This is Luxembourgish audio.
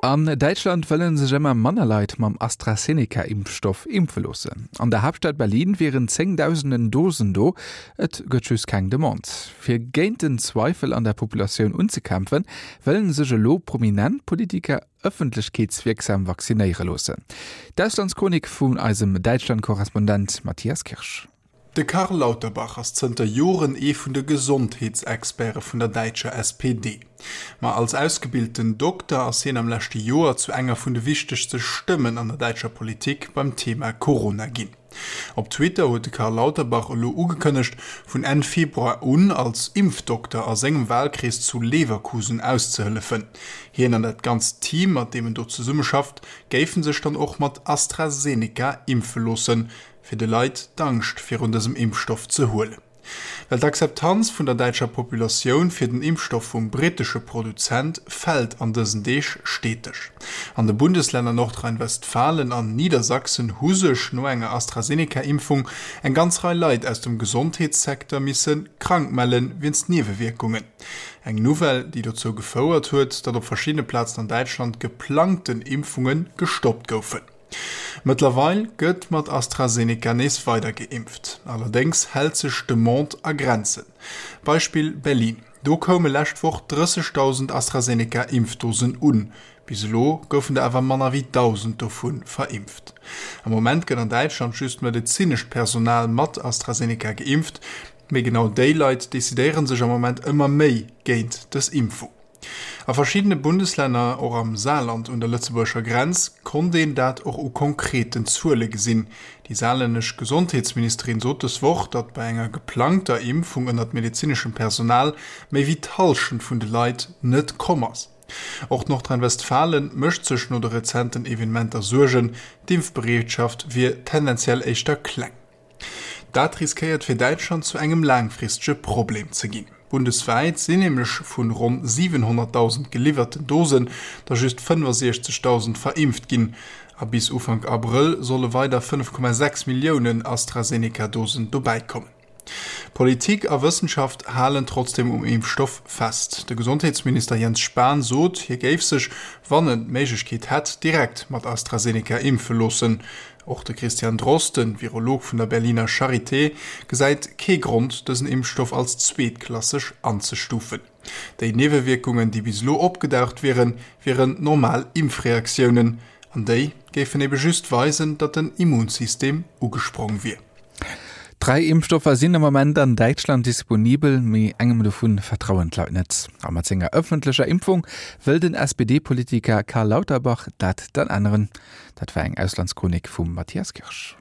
An Däitschland wëlle sech ëmmer manner Leit mam AstraZeneca-Impfstoff impfe loossen. An der Haaptstad Berlin wieren zéngdausenden Dosen do, et gëtt just keng Demande. Fir géint den Zweifel an der Populatioun unzekämpfen, wëllen sech elo prominent Politiker ëffentlechkeetswierksam vaccinéiere loossen. D'Auslandschronik vun eisem Däitschland-Korrespondent Matthias Kirsch. De Karl Lauterbach ass zënter Joren ee vun de Gesondheetsexperte vun der däitscher SPD. Ma als ausgebilten Dokter ass hien am leschte Joer zu enger vun de wichtegste Stëmmen an der däitscher Politik beim Thema Corona ginn. Op Twitter huet de Karl Lauterbach elo ugekënnegt, vun Enn Februar un als Impfdokter a sengem Walkrees zu Leverkusen auszehëllefen. Hien an dat ganzt Team, mat deem en do zesummeschafft, géife sech dann och mat AstraZeneca impfe loossen, fir de Leit d'Angscht virun dësem Impfstoff ze huelen. Well d'Akzeptanz vun der däitscher Populatioun fir den Impfstoff vum brittesche Produzent fält an dësen Deeg steteg. An de Bundeslänner Nordrhein-Westfalen an Niedersachsen hu sech no enger AstraZeneca-Impfung eng ganz Rei Leit aus dem Gesondheetssecteur misse krank melle wéinst Niewewierkungen. Eng Nouvelle, déi dozou gefouert huet, datt op verschiddene Plazen an Däitschland geplangten Impfunge gestoppt goufen. Mëttlerweil gëtt mat AstraZeneca nees weider geimpft, allerdéngs hält sech d'Demande a Grenzen. Beispill Berlin, Do koume lescht Woch 30.000 AstraZeneca-Impfdosen un, bis elo goufen der awer manner wéi 1.000 dovu verimpft. Am Moment gëtt an Däitschland just medezinescht Personal mat AstraZeneca geimpft, mee genau déi Leit decidéiere sech am Moment ëmmer méi géint dës Impfung. A verschiddene Bundeslänner, och am Saarland un der lëtzebuergescher Grenz, konnt een dat och u konkreten Zuele gesinn. Déi saarlännesch Gesondheetsministerin sot dës Woch, datt bei enger geplangter Impfung ënnert medezineschem Personal méi wéi d'Hallschent vun de Leit net komm ass. Och Nordrhein-Westfalen mécht sech no de rezenten Evenementer Suergen, d'Impfbereetschaft wier tendenziell éischter kleng. Dat riskéiert fir Däitschland zu engem laangfristege Problem ze ginn. Bundeswäit sinn nämlech vun ronn 700.000 geliwwerten Dosen der just 65.000 verimpft ginn. A bis Ufank Abrëll solle weider 5,6 Milliounen AstraZeneca-Dosen dobäikommen. Politik a Wëssenschaft halen trotzdeem um Impfstoff fest. De Gesondheetsminister Jens Spahn sot, hie géif sech, wann en d'Méiglechkeet hätt, direkt mat AstraZeneca impfe loossen. Och de Christian Drosten, Virolog vun der Berliner Charité, gesäit kee Grond, dësen Impfstoff als zweetklasseg anzestufen. Déi Niewewierkungen, déi bis elo opgedaucht wieren, wieren normal Impfreaktiounen. An déi géifen ebe just weisen, datt den Immunsystem ugesprong wier. Dräi Impfstoffer sinn am Moment an Däitschland disponibel, mee engem dovun vertrauen d'Leit net. A mat senger ëffentlecher Impfung wëll den SPD-Politiker Karl Lauterbach dat dann änneren. Dat war eng Auslandschronik vum Matthias Kirsch.